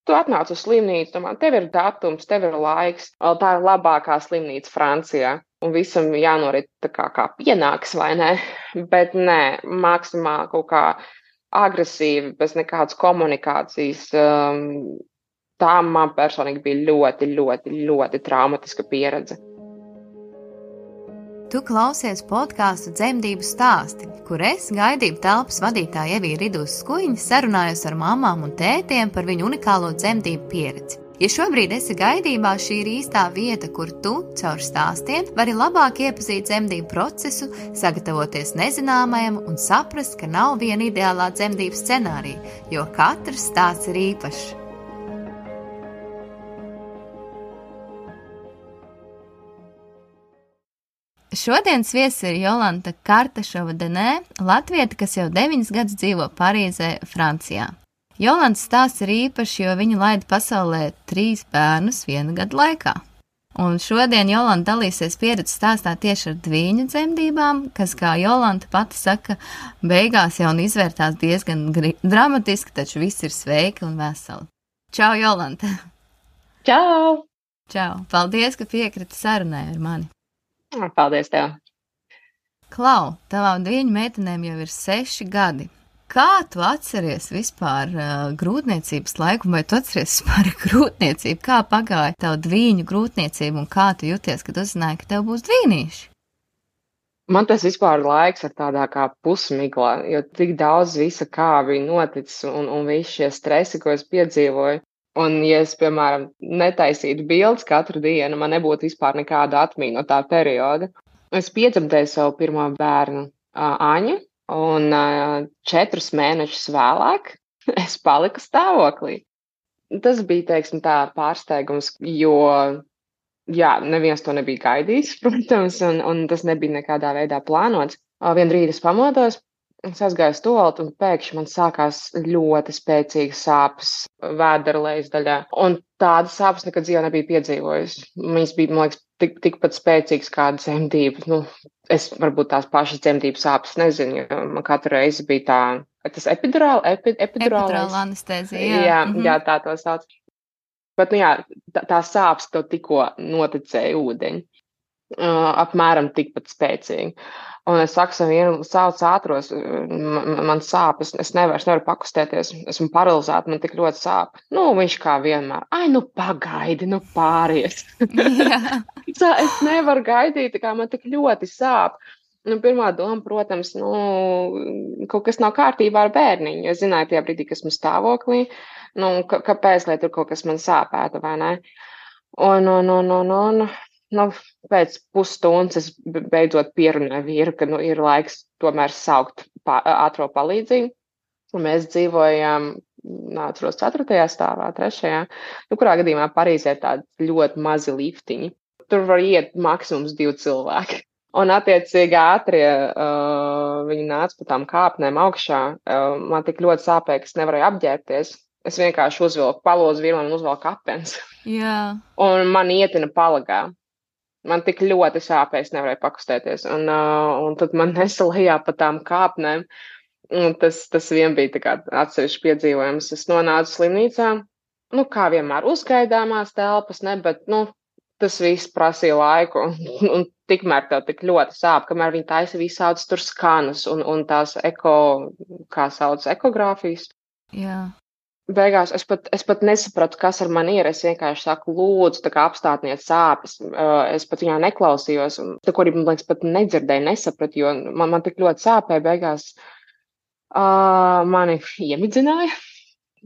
Tu atnāc uz slimnīcu, domā, tev ir datums, tev ir laiks, tā ir labākā slimnīca Francijā. Un visam jānorit tā kā pienāks, vai ne? Bet nē, maksimāli kaut kā agresīvi, bez nekādas komunikācijas. Tā man personīgi bija ļoti, ļoti, ļoti traumatiska pieredze. Tu klausies podkāstu Dzemdību stāsti, kur es, gaidību telpas vadītāja Evija Ridūs Skuiņa, sarunājos ar mamām un tētiem par viņu unikālo dzemdību pieredzi. Ja šobrīd esi gaidībā, šī ir īstā vieta, kur tu, caur stāstiem, vari labāk iepazīt dzemdību procesu, sagatavoties nezināmajam un saprast, ka nav viena ideālā dzemdību scenārija, jo katrs stāsts ir īpašs. Šodienas viesis ir Jolanta Kartašova-Denē, latvieta, kas jau 9 gadus dzīvo Parīzē, Francijā. Jolantas stāsts ir īpašs, jo viņa laida pasaulē 3 bērnus 1 gadu laikā. Un šodien Jolanta dalīsies pieredzes stāstā tieši ar dvīņu dzemdībām, kas, kā Jolanta pati saka, beigās jau izvērtās diezgan dramatiski, taču viss ir sveiki un veseli. Čau, Jolanta! Čau! Čau! Paldies, ka piekriti sarunai ar mani! Paldies tev! Klau, tavām dvīņu meitenēm jau ir 6 gadi. Kā tu atceries vispār grūtniecības laiku, vai tu atceries vispār grūtniecību? Kā pagāja tavu dvīņu grūtniecību un kā tu jūties, kad uzzināji, ka tev būs dvīnīši? Man tas vispār laiks ir tādā kā pusmiglā, jo tik daudz visa kā bija noticis un visi šie stresi, ko es piedzīvoju. Un, ja es, piemēram, netaisītu bildes katru dienu, man nebūtu vispār nekāda atmiņa no tā perioda. Es piedzemdēju savu pirmo bērnu, Aņu, un 4 mēnešus vēlāk es paliku stāvoklī. Tas bija, teiksim, tā pārsteigums, jo, jā, neviens to nebija gaidījis, protams, un tas nebija nekādā veidā plānots. Vienu rītu es pamodos. Es aizgāju uz tualeti un pēkšņi man sākās ļoti spēcīgas sāpes vēdera lejas daļā. Un tādas sāpes nekad dzīvē nebija piedzīvojusi. Viņas bija, man liekas, tikpat spēcīgas kā dzemdības. Es varbūt tās pašas dzemdības sāpes nezinu, jo man katru reizi bija tā, tas epidurāla anestēzija. Jā, tā to sauc. Bet, tā sāpes to tikko noticēja ūdeņi. Apmēram tikpat spēcīgi. Un es saku savu sauc ātros, man sāpes, es nevaru pakustēties, esmu paralizēta, man tik ļoti sāp. Viņš kā vienmēr, pagaidi, pāries. Es nevaru gaidīt, kā man tik ļoti sāp. Pirmā doma, protams, kaut kas nav kārtībā ar bērniņu, jo es zināju tajā brīdī, ka esmu stāvoklī, kāpēc, lai tur kaut kas man sāpētu, vai ne? Pēc pusstundas es beidzot pierunāju vīru, ka ir laiks tomēr saukt ātro palīdzību. Un mēs dzīvojām, atceros, 4. stāvā, 3. Kurā gadījumā Parīzē tādi ļoti mazi liftiņi. Tur var iet maksimums 2 cilvēki. Un attiecīgi ātrie viņi nāca pa tām kāpnēm augšā. Man tik ļoti sāpēja, ka es nevarēju apģērbties. Es vienkārši uzvilku palozu vīru un uzvilku apens. Jā. Un man ietina palagā. Man tik ļoti sāpēja, es nevarēju pakustēties. Un tad man nesa lejā pa tām kāpnēm. Un tas vien bija tā kā atsevišķi piedzīvojums. Es nonācu slimnīcā. Kā vienmēr uzgaidāmās telpas, ne, bet, tas viss prasīja laiku. Un tikmēr tev tik ļoti sāp, kamēr viņi taisa visādas tur skanus un tās ekogrāfijas. Jā. Beigās es pat nesapratu, kas ar mani ir. Es vienkārši saku, lūdzu, tā kā apstātniet sāpes. Es pat viņā neklausījos. Ko arī, man liekas, pat nedzirdēju, nesapratu, jo man tik ļoti sāpēja. Beigās mani iemidzināja.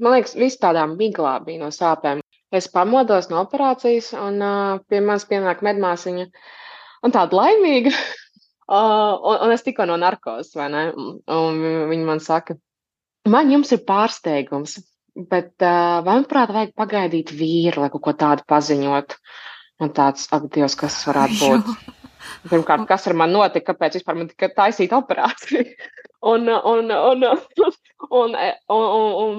Man liekas, viss tādā miglā bija no sāpēm. Es pamodos no operācijas un pie manis pienāk medmāsiņa. Un tāda laimīga. Un es tikko no narkozes, vai ne? Un viņa man saka, man jums ir pārsteigums. Bet vai, manuprāt, vajag pagaidīt vīru, lai kaut ko tādu paziņot? Un tāds, ak, Dievs, kas varētu būt? Pirmkārt, kas ar mani notika, kāpēc vispār man tika taisīta operācija? Un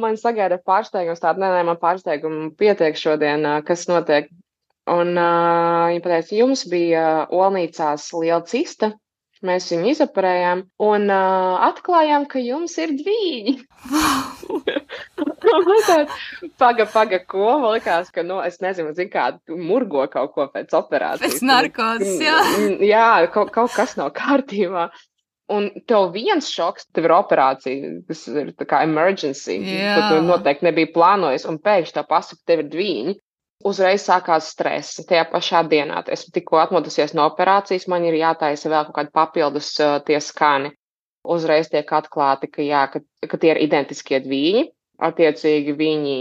man sagaida pārsteigums tādu, nē, man pārsteigumu pietiek šodien, kas notiek. Un viņa pateica, jums bija olnīcās liela cista, Mēs viņu izoperējām un atklājām, ka jums ir dvīņi. Paga, ko? Man likās, ka, es nezinu, kā murgo kaut ko pēc operācijas. Pēc narkozes, jā. Jā, kaut kas nav kārtībā. Un tev viens šoks, tev ir operācija, kas ir tā kā emergency, ko tu noteikti nebija plānojis, un pēkšņi tev pasaka, tev ir dvīņi. Uzreiz sākās stress. Tajā pašā dienā esmu tikko atmodusies no operācijas, man ir jātaisa vēl kaut kādi papildus tie skani. Uzreiz tiek atklāti, ka tie ir identiskie dvīņi. Attiecīgi viņi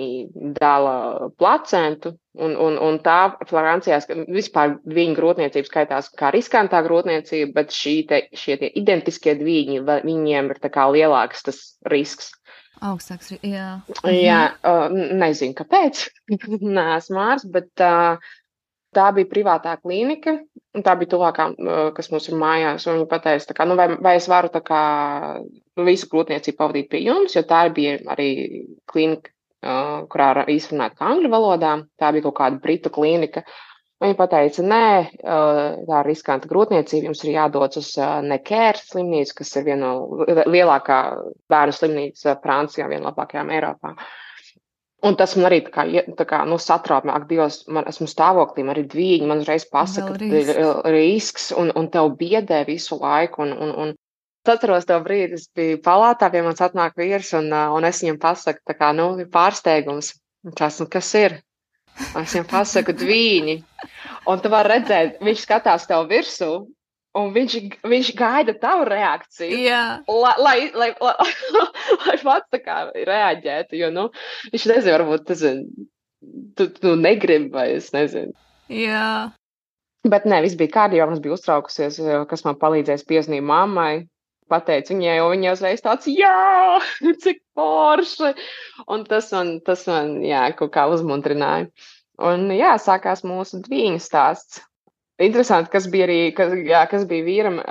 dala placentu, un tā Francijā vispār dvīņu grūtniecība skaitās kā riskantā grūtniecība, bet šie tie identiskie dvīņi, viņiem ir tā kā lielāks tas risks. Augstāks, jā. Jā, nezinu, kāpēc. Neesmu ārsts, bet tā bija privātā klīnika, un tā bija tuvākā, kas mums ir mājās, un viņa pateica, tā kā, vai es varu tā kā visu grūtniecību pavadīt pie jums, jo tā bija arī klīnika, kurā izrunāt angļu valodā, tā bija kaut kāda britu klīnika. Viņa pateica, nē, tā ir riskanta grūtniecība, jums ir jādodas uz Necker slimnīcu, kas ir viena no lielākā bērnu slimnīca Francijā, viena no labākajām Eiropā. Un tas man arī tā kā satrauc, ak, Dievs, esmu stāvoklī, man ir dvīņi, man uzreiz pasaka, ka ir risks, un tev biedē visu laiku. Un atceros to brīdi, es biju palātā, pie manis atnāk vīrs, un es viņam pasaku, tā kā, ir pārsteigums. Kas ir? Es viņam pasaku dvīņi. Un tu vari redzēt, viņš skatās tev virsū, un viņš gaida tavu reakciju. Jā. Lai pats tā kā reaģētu, jo, viņš nezinu, varbūt tu negribi, vai es nezinu. Jā. Bet nē, viss bija kārtībā, mums bija uztraukusies, kas man palīdzēs piezīmēt mammai. Pateicu viņai, jo viņa uzreiz tāds, jā, cik forši. Un tas man, jā, kaut kā uzmundrināja. Un jā, sākās mūsu dvīņu stāsts. Interesanti, kas bija vīram,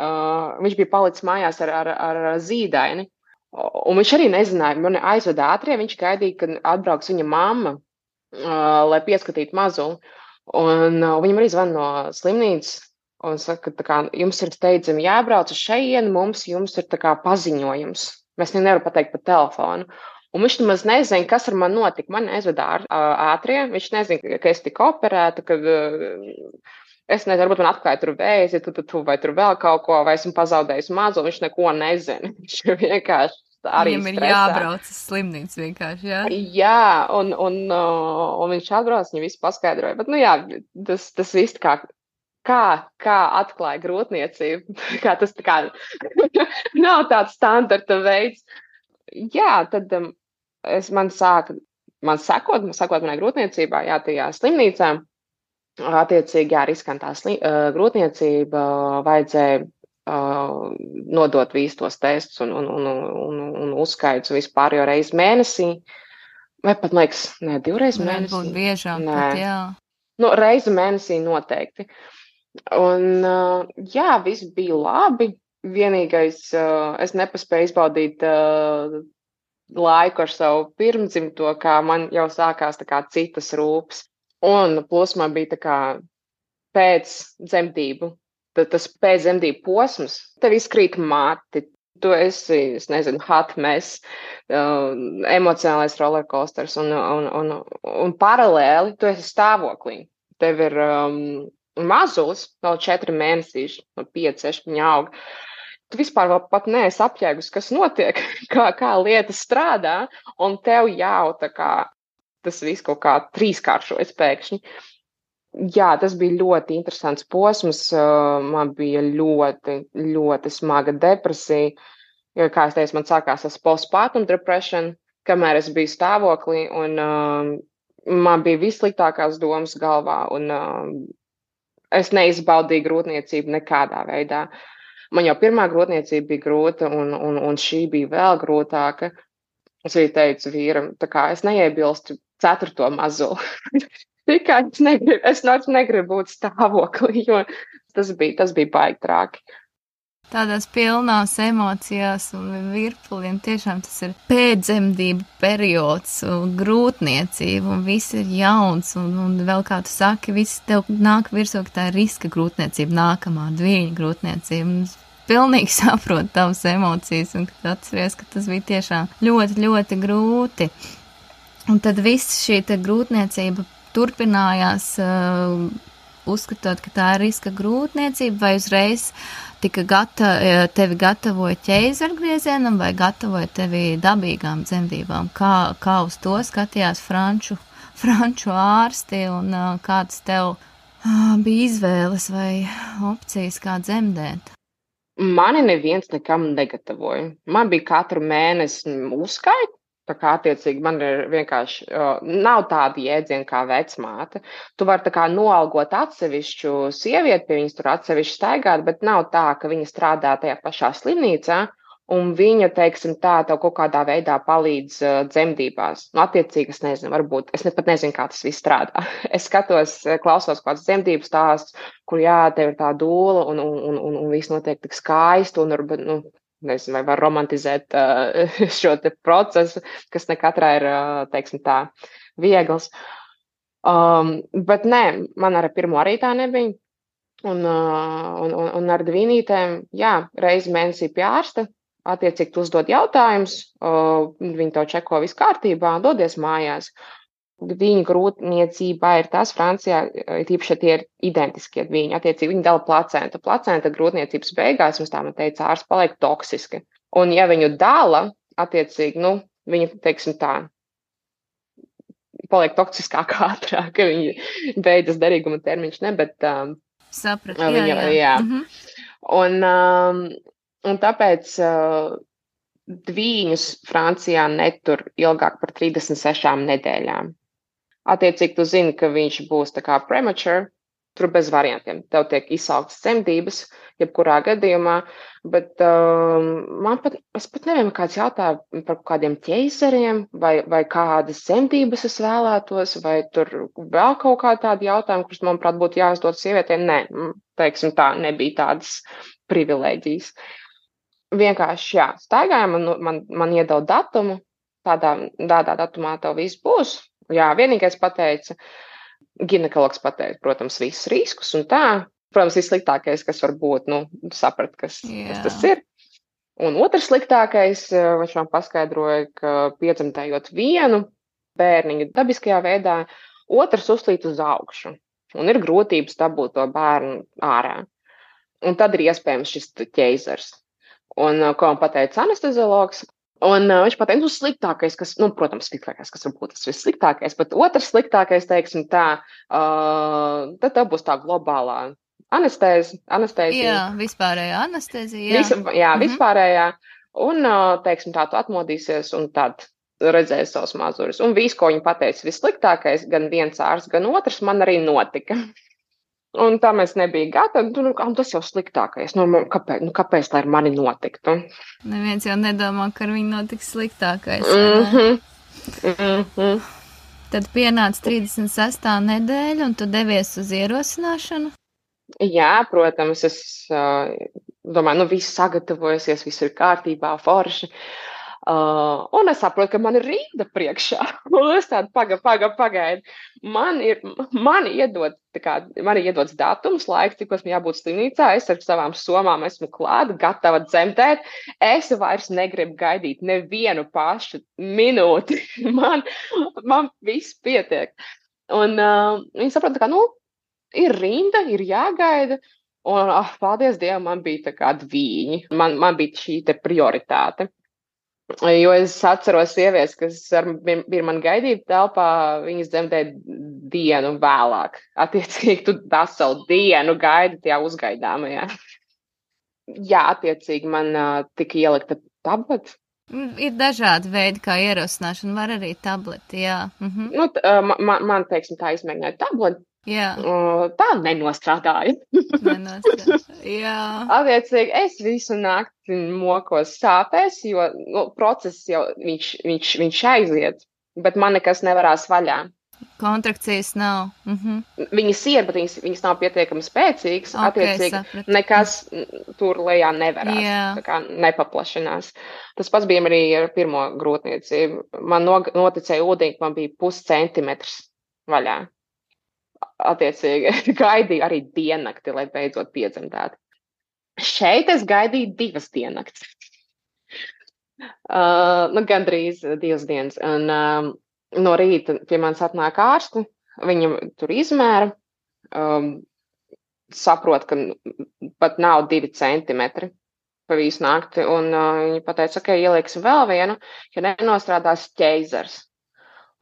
viņš bija palicis mājās ar zīdaini. Un viņš arī nezināja, man aizveda ātrie, viņš gaidīja, kad atbrauks viņa mamma, lai pieskatītu mazuli. Un viņam arī zvan no slimnīcas. Un saka, tā kā jums ir steidzami jābrauc uz šejienu, jums ir tā kā paziņojums. Mēs nevaram pateikt pa telefonu. Un viņš nemaz nezina, kas ar mani notika. Man aizveda ātrie, viņš nezina, ka es tiku operēta, ka es nezinu, varbūt man atklāja tur vēzi, vai tur vēl kaut ko, vai esmu pazaudējusi mazu, viņš neko nezina. Viņš vienkārši arī Viņam ir stresā. jābrauc uz slimnīcu vienkārši, jā? Jā, un viņš atbrauc, viņa visu paskaidroja. Bet, jā, tas viss kā atklāja grūtniecību, kā tas tā kā nav tāds standarta veids. Jā, tad man sekot manai grūtniecībā, jā, tajā slimnīcā, attiecīgi, jā, riskantā grūtniecība vajadzēja nodot visus tos testus un uzskaits vispār jau reizi mēnesī, vai pat, liekas, ne, 2 reizes mēnesī. Varbūt biežāk, pat, jā. Reizi mēnesī noteikti. Un, jā, viss bija labi. Vienīgais, es nepaspēju izbaudīt laiku ar savu pirmdzimto, kā man jau sākās tā kā citas rūpes. Un plus man bija tā kā pēc dzemdību, tas pēc dzemdību posms, tev izkrīt mati, tu esi, es nezinu, hot mess, emocionālais rollercoasters un paralēli tu esi stāvoklī. Tev ir mazulis, vēl 4 mēnesīši, no 5, 6 viņa aug. Tu vispār vēl pat neesi apjēgus, kas notiek, kā lietas strādā, un tev jau tā kā tas viss kaut kā 3-kāršojas pēkšņi. Jā, tas bija ļoti interesants posms, man bija ļoti, ļoti smaga depresija, jo, kā es teicu, man sākās tas postpartum depression, kamēr es biju stāvoklī, un man bija vissliktākās domas galvā, un es neizbaudīju grūtniecību nekādā veidā. Man jau pirmā grūtniecība bija grūta, un šī bija vēl grūtāka. Es arī teicu vīram, tā kā es neiebilstu 4. mazuli. Tikai es negribu būt stāvoklī, jo tas bija baigi traki. Tādās pilnās emocijās un virpuliem tiešām tas ir pēcdzemdību periods, grūtniecība, un viss ir jauns, un vēl kā tu saki, viss tev nāk virsū, ka tā ir riska grūtniecība, nākamā dvīņa grūtniecība. pilnīgi saprotu tavas emocijas un kad atceries, ka tas bija tiešām ļoti, ļoti grūti. Un tad viss šī te grūtniecība turpinājās, uzskatot, ka tā ir riska grūtniecība, vai uzreiz tevi gatavoja ķeizargriezienam vai gatavoja tevi dabīgām dzemdībām? Kā uz to skatījās franču ārsti un kāds tev bija izvēles vai opcijas, kā dzemdēt? Mani neviens nekam negatavoja. Man bija katru mēnesi uzskaita. Tā kā attiecīgi man ir vienkārši, nav tāda jēdziena kā vecmāte. Tu vari tā kā noalgot atsevišķu sievieti, pie viņas tur atsevišķi staigāt, bet nav tā, ka viņa strādā tajā pašā slimnīcā un viņa, teiksim tā, tev kaut kādā veidā palīdz dzemdībās. Nu, attiecīgi, es nezinu, varbūt, es pat nezinu, kā tas viss strādā. Es skatos, klausos kāds dzemdību stāsts, kur jā, tev ir tā dūla un viss notiek tik skaisti un varbūt, nu, nezinu, vai var romantizēt šo te procesu, kas ne katrā ir, teiksim tā, viegls. Bet nē, man ar pirmo arī tā nebija. Un ar dvīnītēm, jā, reizi mēnesī pie ārsta, attiecīgi tu uzdod jautājumus, viņi to čeko viss kārtībā, dodies mājās. Dviņu grūtniecībā ir tas, Francijā, tīpaši, tie ir identiskie dviņi, attiecīgi viņi dala placentu. Placenta grūtniecības beigās, mums tā man teica, ārsts paliek toksiski. Un ja viņu dala, attiecīgi, nu, viņa, teiksim tā, paliek toksiskāk ātrāk, ka viņa beidzas derīguma termiņš, ne, bet sapratu, jā. Un tāpēc dvīņus Francijā netur ilgāk par 36 nedēļām. Attiecīgi, tu zini, ka viņš būs tā kā premature, tur bez variantiem. Tev tiek izsauktas dzemdības, jebkurā gadījumā, bet es pat nevienu kāds jautāju par kādiem ķeizariem, vai kādas dzemdības es vēlētos, vai tur vēl kaut kā tādi jautājumi, kurus, manuprāt, būtu jāuzdod sievietēm. Nē, teiksim tā, nebija tādas privilēģijas. Vienkārši, jā, staigājām, man iedod datumu, tādā datumā tev viss būs. Jā, vienīgais pateica, ginekologs pateica, protams, visus riskus un tā. Protams, vissliktākais, kas var būt, nu, saprat, kas tas ir. Un otrs sliktākais, viņš man paskaidroja, ka piedzemdējot vienu bērniņu dabiskajā veidā, otrs uzlīt uz augšu. Un ir grūtības dabūt to bērnu ārā. Un tad ir iespējams šis ķeizars. Un ko man pateica anesteziologs, un viņš pateica, sliktākais, kas, nu, protams, sliktākais, kas varbūt tas vissliktākais, bet otrs sliktākais, teiksim tā, tad tā būs tā globālā anestēzija. Jā, vispārējā anestēzija. Vispārējā. Un, teiksim tā, tu atmodīsies un tad redzēsi savus mazuris. Un viss, ko viņi pateica, vissliktākais, gan viens ārsts, gan otrs, man arī notika. Un tā mēs nebija gatavi, tas jau sliktākais. Kāpēc tā ar mani notiktu? Neviens jau nedomā, ka ar viņu notiks sliktākais. Tad pienāca 36. nedēļa, un tu devies uz ierosināšanu? Jā, protams, es domāju, viss sagatavojusies, viss ir kārtībā, forši. Un es saprotu, ka man ir rinda priekšā. Un es tādu pagaidu. Man iedots datums, laiks, cikos man jābūt slimnīcā. Es ar savām somām esmu klāta, gatava dzemdēt. Es vairs negribu gaidīt nevienu pašu minūti. Man viss pietiek. Un viņi saprot, ka, ir rinda, ir jāgaida. Un, paldies Dievam, man bija tā kā dvīņi. Man bija šī te prioritāte. Jo es atceros sievietes, kas bija man gaidīt telpā, viņas dzemdēja dienu vēlāk. Attiecīgi, tu veselu dienu gaidi tajā uzgaidāmajā. Jā, attiecīgi, man tika ielikta tableta. Ir dažādi veidi, kā ierosināšana, var arī tableti, jā. Man, teiksim, tā izmēģināja tableti. Jā. Tā nenostrādāja. Jā. Attiecīgi, es visu nakti mokos sāpēs, jo process jau viņš aiziet, bet man nekas nevarās vaļā. Kontrakcijas nav. Viņas ir, bet viņas nav pietiekami spēcīgas. Attiecīgi, nekas tur lejā nevarās. Tā kā nepaplašinās. Tas pats bija arī ar pirmo grūtniecību. Man noticēja ūdeņi, man bija 0,5 centimetrs vaļā. Attiecīgi, gaidīju arī diennakti, lai beidzot piedzemdētu. Šeit es gaidīju 2 diennakts. Gandrīz 2 dienas. Un no rīta pie manis atnāk ārsti, viņam tur izmēra, saprot, ka pat nav 2 centimetri pa visu nakti, un viņi pateica, ka ielieksim vēl vienu, ja nenostrādās ķeizars.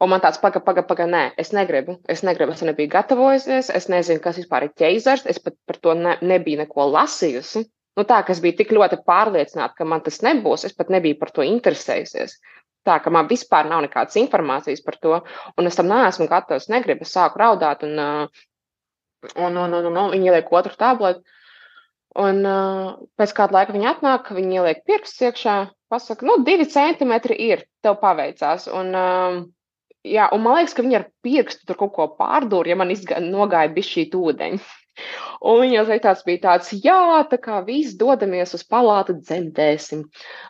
Un man tāds paga, nē, es negribu, es nebiju gatavojusies, es nezinu, kas vispār ir ķeizars, es pat par to nebiju neko lasījusi. Nu tā, ka es biju tik ļoti pārliecināta, ka man tas nebūs, es pat nebiju par to interesējusies. Tā, ka man vispār nav nekādas informācijas par to, un es tam neesmu gatava, es negribu, es sāku raudāt, un viņi ieliek otru tabletu. Un pēc kāda laika viņi atnāk, viņi ieliek pirkstus iekšā, pasaka, 2 centimetri ir, tev paveicās. Un man liekas, ka viņi ar pirkstu tur kaut ko pārdūra, ja man nogāja bišķīt ūdeņi. Un viņas bija tāds, jā, tā kā visi dodamies uz palātu, dzemdēsim.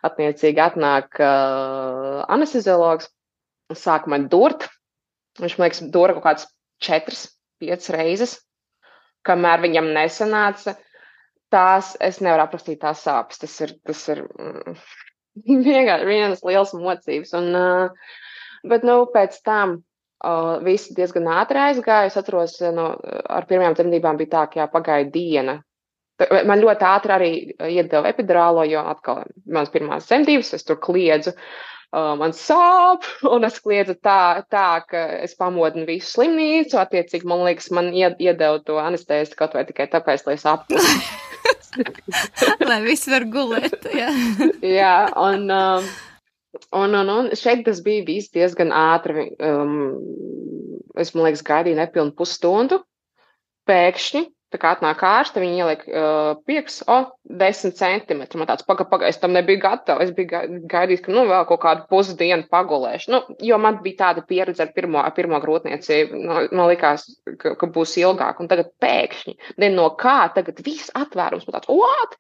Attiecīgi atnāk anesteziologs, sāk man durt. Viņš, man liekas, dura kaut kāds 4-5 reizes, kamēr viņam nesanāca. Tās, es nevaru aprakstīt tās sāpes. Tas ir vienkārši vienas liels mocības. Bet, pēc tam visi diezgan ātri aizgāja. Es atceros, ar pirmajām dzemdībām bija tā, ka pagāja diena. Man ļoti ātri arī iedeva epidurālo, jo atkal manas pirmās dzemdības, es tur kliedzu, man sāp, un es kliedzu tā, ka es pamodinu visu slimnīcu. Attiecīgi, man liekas, man iedeva to anestēzi kaut vai tikai tāpēc, lai es apkusu. Lai viss var gulēt, jā. Jā, un šeit tas bija viss diezgan ātri. Es, man liekas, gaidīju nepilnu pusstundu. Pēkšņi, tā kā atnāk ārste, viņi ieliek pirks, 10 centimetri. Man tāds, paga, es tam nebiju gatava. Es biju gaidījis, ka, vēl kaut kādu pusdienu pagulēšu. Jo man bija tāda pieredze ar pirmo grūtniecību. Man likās, ka būs ilgāk. Un tagad pēkšņi, no kā, tagad viss atvērums. Man tāds, what?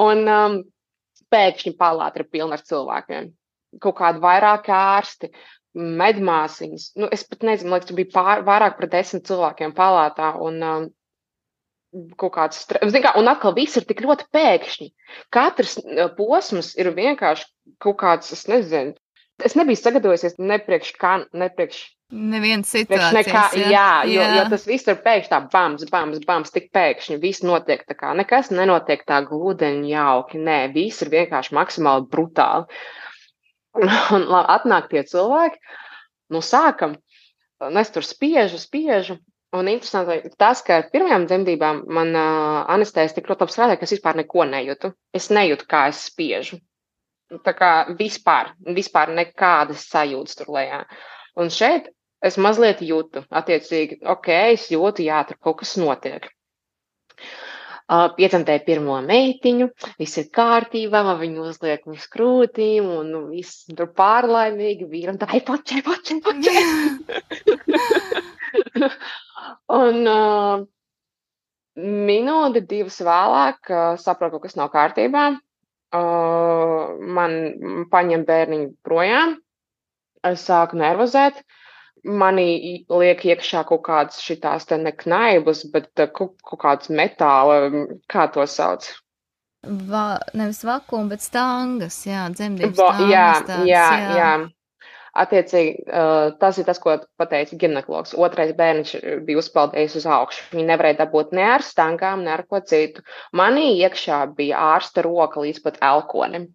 Un pēkšņi palāta ir pilna ar cilvēkiem. Kaut kādi vairāki ārsti, medmāsiņas. Es pat nezinu, man liekas, tur bija vairāk par 10 cilvēkiem palātā. Un kaut kāds un atkal viss ir tik ļoti pēkšņi. Katrs posms ir vienkārši kaut kāds, es nezinu. Es nebiju sagatavojusies nepriekš nevienas situācijas. Jo tas viss ir pēkšņi tā bams, tik pēkšņi. Viss notiek tā kā, nekas nenotiek tā glūdeņi jauki. Nē, viss ir vienkārši maksimāli brutāli. Un atnāk tie cilvēki, sākam, es tur spiežu. Un interesanti tas, ka ar pirmajām dzemdībām man anestēzija tik ļoti strādāja, ka es vispār neko nejūtu. Es nejūtu, kā es spiežu. Tā kā vispār nekādas sajūtas tur lejā. Un šeit es mazliet jūtu, attiecīgi, es jūtu, jā, tur kaut kas notiek. Piedzemdēju pirmo meitiņu, viss ir kārtībā, viņu uzliek uz krūtīm, un viss tur pārlaimīgi, vīram tā, počē. Un minūti, 2 vēlāk saprotu, ka kas nav kārtībā. Man paņem bērniņu projām, es sāku nervozēt, mani liek iekšā kaut kādas šitās te ne knaibas, bet kaut kādas metāla, kā to sauc? Nevis vakuma, bet stangas, jā, dzemdības stangas. Jā. Attiecīgi, tas ir tas, ko pateica ginekologs. Otrais bērniņš bija uzpeldējis uz augšu. Viņi nevarēja dabūt ne ar stangām, ne ar ko citu. Manī iekšā bija ārsta roka līdz pat elkonim.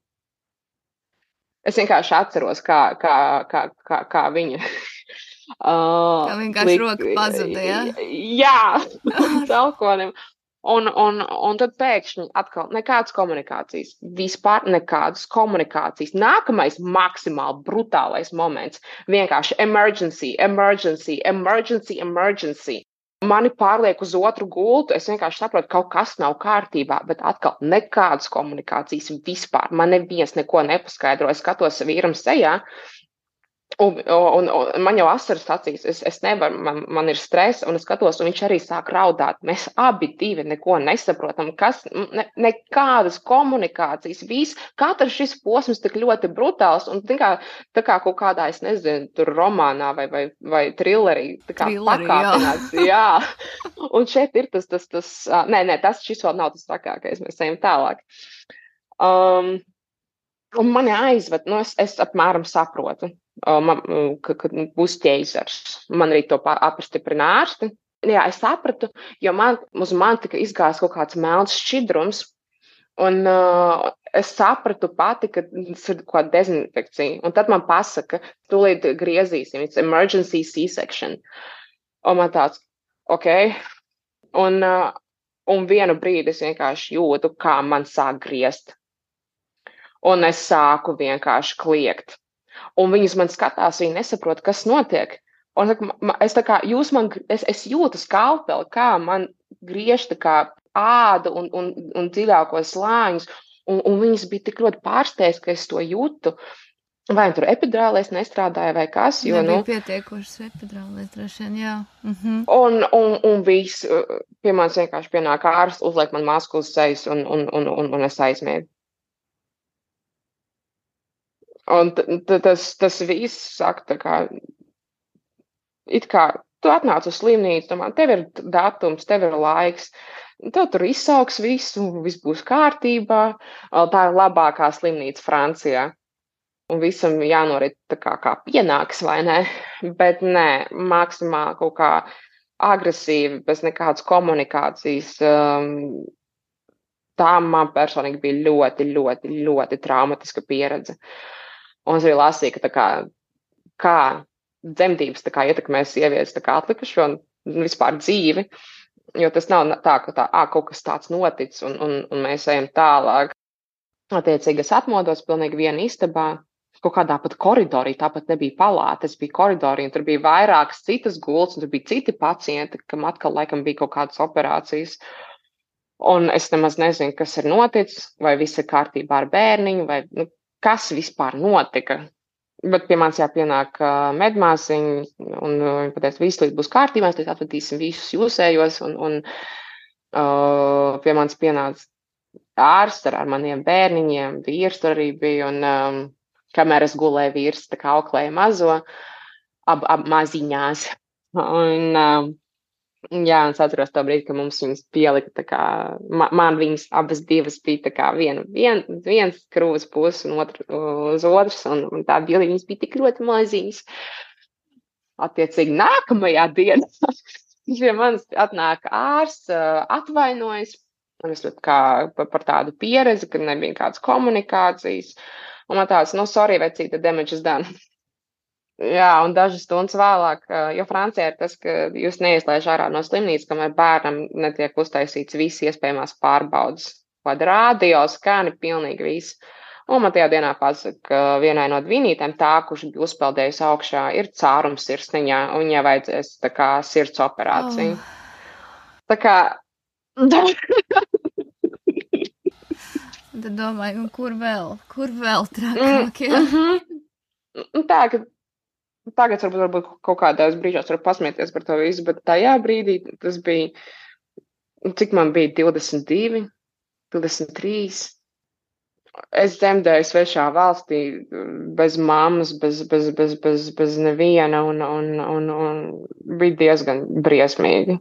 Es vienkārši atceros, kā viņa. Kā vienkārši roka pazuda, jā? Jā, līdz elkonim. Un tad pēkšņi atkal nekādas komunikācijas. Vispār nekādas komunikācijas. Nākamais maksimāli brutālais moments. Vienkārši emergency. Mani pārliek uz otru gultu. Es vienkārši saprotu, ka kaut kas nav kārtībā, bet atkal nekādas komunikācijas vispār. Man neviens neko nepaskaidro. Es skatos vīram sejā. Un man jau asaras acīs, es nevaru, man ir stress, un es skatos, un viņš arī sāk raudāt. Mēs abi divi neko nesaprotam, nekādas komunikācijas, katrs šis posms tik ļoti brutāls, un tā kā kaut kādā, es nezinu, tur romānā vai trillerī, tā kā pakāpināts, jā. Un šeit ir šis vēl nav tas trakākais, mēs ejam tālāk. Un mani aizved, es apmēram saprotu, ka būs ķeizars. Man arī to apstiprina ārsti. Jā, es sapratu, jo uz man tika izgājis kaut kāds melns šķidrums, un es sapratu pati, ka tas ir kaut kāda dezinfekcija. Un tad man pasaka, tūlīt griezīsim, it's emergency C-section. Un man tāds, ok. Un vienu brīdi es vienkārši jūtu, kā man sāk griezt. Un es sāku vienkārši kliegt. Un viņas man skatās, viņi nesaprot, kas notiek. Un es jūtu skalpeli, kā man griež tā kā ādu un dziļākos slāņus. Un viņas bija tik ļoti pārsteigts, ka es to jūtu. Vai tur epidurālais nestrādāja vai kas? Nebija pietiekošas epidurālais, droši vien, jā. Un viss pie manis vienkārši pienāk ārsts, uzliek man masku uz sejas un es aizmiegu. Un tas viss saka, tā kā, it kā tu atnāc uz slimnīcu, domā, tev ir datums, tev ir laiks, tev tur izsauks visu, viss būs kārtībā, tā ir labākā slimnīca Francijā. Un visam jānorit tā kā pienāks, vai ne? Bet nē, maksimāli kaut kā agresīvi, bez nekādas komunikācijas. Tā man personīgi bija ļoti, ļoti, ļoti traumatiska pieredze. Un es arī lasīju, ka kā dzemdības ietekmē sievietes atlikušo un vispār dzīvi, jo tas nav tā, ka kaut kas tāds noticis un mēs ejam tālāk. Attiecīgi es atmodos pilnīgi viena istabā, kaut kādā pat koridorī, tāpat nebija palāta, es biju koridorī, un tur bija vairākas citas gultas, un tur bija citi pacienti, kam atkal laikam bija kaut kādas operācijas. Un es nemaz nezinu, kas ir noticis, vai viss ir kārtībā ar bērniņu, vai kas vispār notika. Bet pie manis jāpienāk medmāsiņi, un viņi pateica, viss līdz būs kārtībā, mēs atvedīsim visus jūsējos, un pie manis pienāca ārsts ar maniem bērniņiem, vīrs tur arī bija, un kamēr es gulēju, vīrs tā kā auklēja mazo, ab maziņās. Un es atceros to brīdi, ka mums viņas pielika, man viņas abas divas bija viens krūves puses un uz otras, un tā bija, viņas bija tik ļoti maziņas. Attiecīgi nākamajā dienā pie manis atnāk ārsts, atvainojas, un es par tādu pieredzi, ka nebija kādas komunikācijas, un man tāds, sorry, vecīte, the damage is done. Jā, un dažas stundas vēlāk, jo Francijā ir tas, ka jūs neieslēdz ārā no slimnīcas, kamēr bērnam netiek uztaisīts visi iespējamās pārbaudas. Kāda rādio, skani, pilnīgi viss. Un man tajā dienā pasaka, ka vienai no dvinītēm tā, kurš bija uzpeldējusi augšā, ir cārums sirsniņā, un viņai vajadzēs tā kā sirds operāciju. Tā kā... Tad domāju, un kur vēl trakāk, jā? Tā, ka tagad varbūt kaut kādās brīžos var pasmieties par to visu, bet tajā brīdī tas bija, cik man bija 22, 23. Es dzemdēju svešā valstī, bez mammas, bez neviena, un bija diezgan briesmīgi.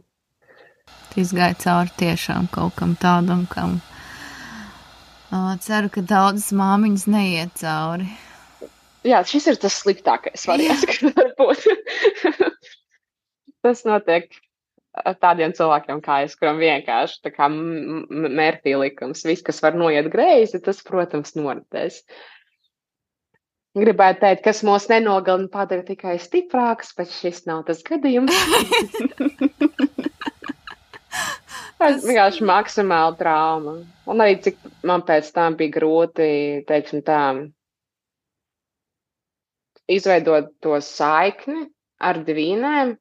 Izgāja cauri tiešām kaut kam tādam, kam ceru, ka daudzas māmiņas neiet cauri. Jā, šis ir tas sliktākais variants, kas var būt. Tas notiek tādiem cilvēkiem kā es, kuram vienkārši tā kā mērķī likums. Viss, kas var noiet greizi, tas, protams, noritēs. Gribētu teikt, kas mūs nenogalina padara tikai stiprāks, bet šis nav tas gadījums. Tas vienkārši maksimāli trauma. Un arī cik man pēc tam bija grūti, teiksim tā, izveidot to saikni ar dvīnēm,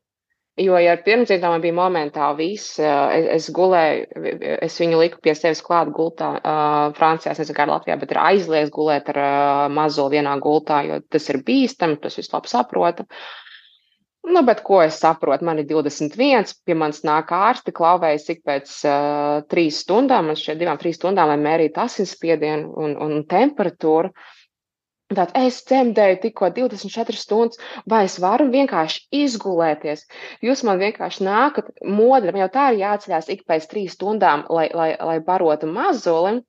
jo, ja ar pirmdzimtām man bija momentāli viss, es gulēju, es viņu liku pie sevis klāt gultā, Francijā, es nezinu, kā Latvijā, bet ir aizliegts gulēt ar mazo vienā gultā, jo tas ir bīstami, tas viss labi saprota. Bet ko es saprotu, man ir 21, pie manis nāk ārsti, klauvējas ik pēc 3 stundām, man šķiet 2-3 stundām, lai mērītu asinsspiedienu un temperatūru. Tātad es dzemdēju tikko 24 stundas, vai es varu vienkārši izgulēties? Jūs man vienkārši nākat modri, man jau tā ir jāceļās ik pēc 3 stundām, lai barotu mazuli.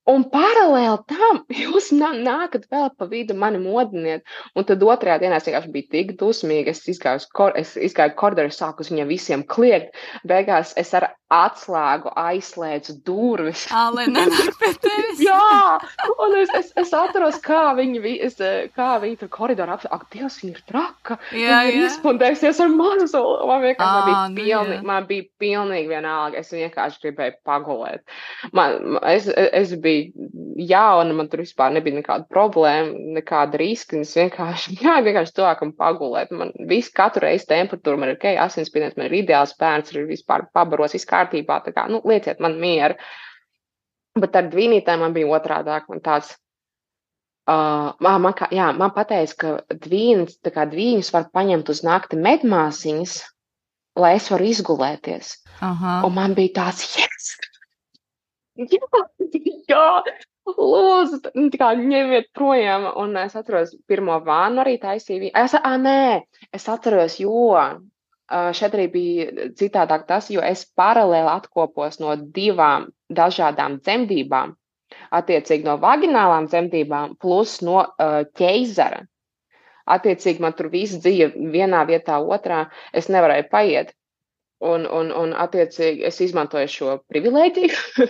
Un paralēli tam jūs nākat vēl pa vidu mani modiniet. Un tad otrajā dienā es vienkārši biju tik dusmīga. Es izgāju koridoru, sāku uz viņiem visiem kliegt. Beigās es ar atslēgu aizslēdzu durvis. Lai nenāk pie tevis. Jā, un es atceros, kā viņi tur koridorā apsaka, ak, Dievs, viņa ir traka. Jā, Viņa ir jā. izpundējusies ar mazuli. Man vienkārši jā. man bija pilnīgi vienalga. Es vienkārši gribēju pagulēt. Es biju jauna, man tur vispār nebija nekāda problēma, nekāda riska. Es vienkārši tuvākam pagulēt. Man katru reizi temperatūra, man ir ok, asinsspiediens, man ir ideāls bērns, ir vispār pabaros, viss kārtībā. Tā kā, lieciet man mieru. Bet ar dvīnītēm man bija otrādāk. Man tāds, man pateica, ka dvīņus var paņemt uz nakti medmāsiņas, lai es varu izgulēties. Aha. Un man bija tāds, yes! Jā, lūdzu, tā kā ņemiet projām. Un es atceros, pirmo vānu arī taisīju. Es atceros, jo šeit arī bija citādāk tas, jo es paralēli atkopos no 2 dažādām dzemdībām, attiecīgi no vaginālām dzemdībām plus no ķeizara. Attiecīgi man tur viss dzīve vienā vietā, otrā, es nevarēju paiet. Un attiecīgi es izmantoju šo privilēģiju.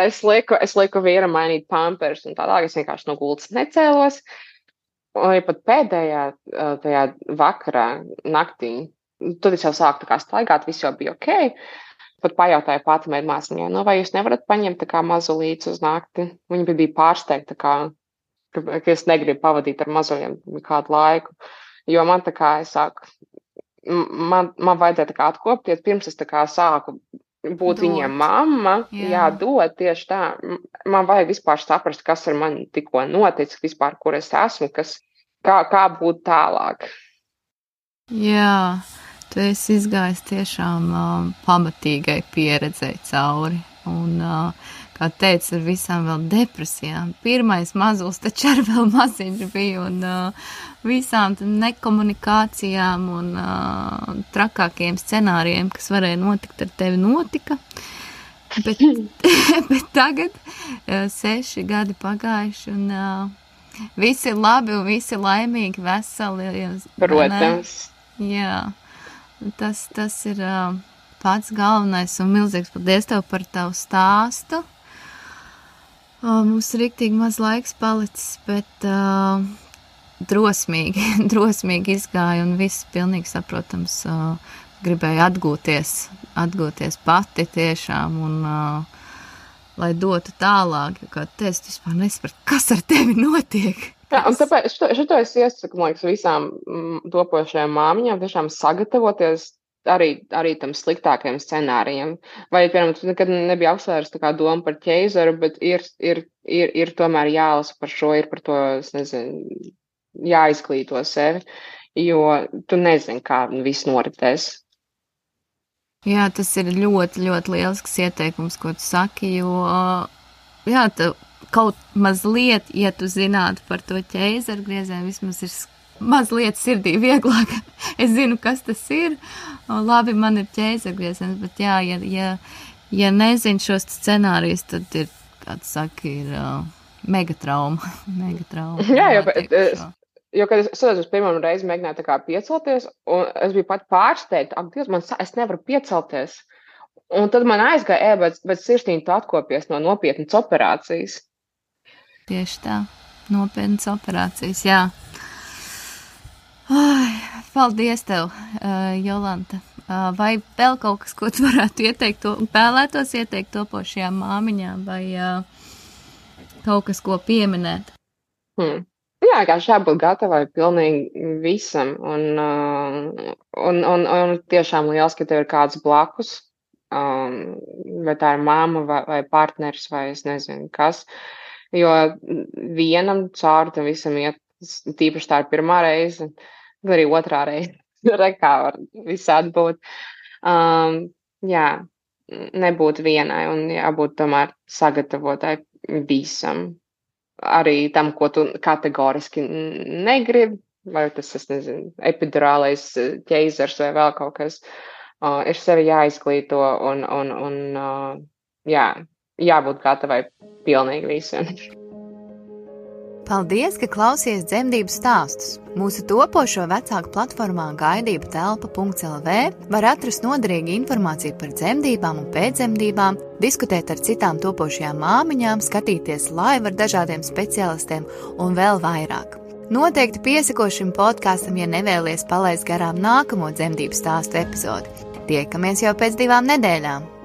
es lieku vīram mainīt pampers un tādā, es vienkārši no gultas necēlos. Un arī pat pēdējā tajā vakarā, naktī, tad es jau sāku tā kā staigāt, viss jau bija ok. Pat pajautāju pati medmāsiņai, vai jūs nevarat paņemt tā kā mazulītes uz nakti? Viņa bija pārsteigta, ka es negribu pavadīt ar mazuļiem kādu laiku. Jo man tā kā es sāku, man vajadzēja tā kā atkopties, pirms es tā kā sāku būt viņiem mamma, dot tieši tā. Man vajag vispār saprast, kas ar mani tikko noticis, vispār, kur es esmu, kā būt tālāk. Jā, tu esi izgājis tiešām pamatīgai pieredzei cauri. Un, kā teicu, ar visām vēl depresijām. Pirmais mazulis taču ar vēl maziņš bija un visām nekomunikācijām un trakākiem scenārijiem, kas varēja notikt ar tevi, notika. Bet tagad 6 gadi pagājuši un visi ir labi un visi laimīgi, veseli. Protams. Jā, tas ir pats galvenais un milzīgs paldies tev par tavu stāstu. Mums riktīgi maz laiks palicis, bet drosmīgi izgāja un viss pilnīgi saprotams gribēja atgūties pati tiešām un lai dotu tālāk, jo kā tu vispār nesaprati, kas ar tevi notiek. Jā, un tāpēc šito es iesaku, man liekas, visām topošajām māmiņām tiešām sagatavoties arī tam sliktākajam scenārijam. Vai, piemēram, tu nekad nebija apsvērs tā kā doma par ķeizaru, bet ir tomēr jālasa par šo, ir par to, es nezinu, jāizglīto sevi, jo tu nezini, kā viss noritēs. Jā, tas ir ļoti, ļoti lielisks ieteikums, ko tu saki, jo, jā, kaut mazliet, ja tu zinātu par to ķeizaru griezienu, vismaz ir mazliet sirdī vieglāk. Es zinu, kas tas ir. Labi, man ir ķeizaru grieziens, bet jā, ja nezinu šos scenārijus, tad ir, kā tu saki, ir megatrauma. Jā, jo, kad es uz pirmo reizi mēģināju tā kā piecelties, un es biju pat pārsteigta, ak, Dievs, es nevaru piecelties. Un tad man aizgāja, bet sirsnīgi tu atkopies no nopietnas operācijas. Tieši tā, nopietnas operācijas, jā. Ai, paldies tev, Jolanta. Vai vēl kaut kas, ko tu varētu vēlētos ieteikt topošajām māmiņām, vai kaut kas, ko pieminēt? Jā, kā jābūt gatavai pilnīgi visam, un tiešām liels, ka tev ir kāds blakus, vai tā ir mamma, vai partneris, vai es nezinu kas. Jo vienam cauri tam visam iet, tīpaši tā ir pirmā reize, tad arī otrā reize, kā var visādi būt. Jā, nebūt vienai un jābūt tomēr sagatavotai visam. arī tam, ko tu kategoriski negribi, vai tas, es nezinu, epidurālais ķeizars vai vēl kaut kas. Ir sevi jāizglīto un jābūt gatavai pilnīgi visiem. Paldies, ka klausies dzemdību stāstus. Mūsu topošo vecāku platformā gaidību telpa.lv var atrast noderīgu informāciju par dzemdībām un pēcdzemdībām, diskutēt ar citām topošajām māmiņām, skatīties live ar dažādiem speciālistiem un vēl vairāk. Noteikti piesako šim podkastam, ja nevēlies palaist garām nākamo dzemdību stāstu epizodi. Tiekamies jau pēc 2 nedēļām!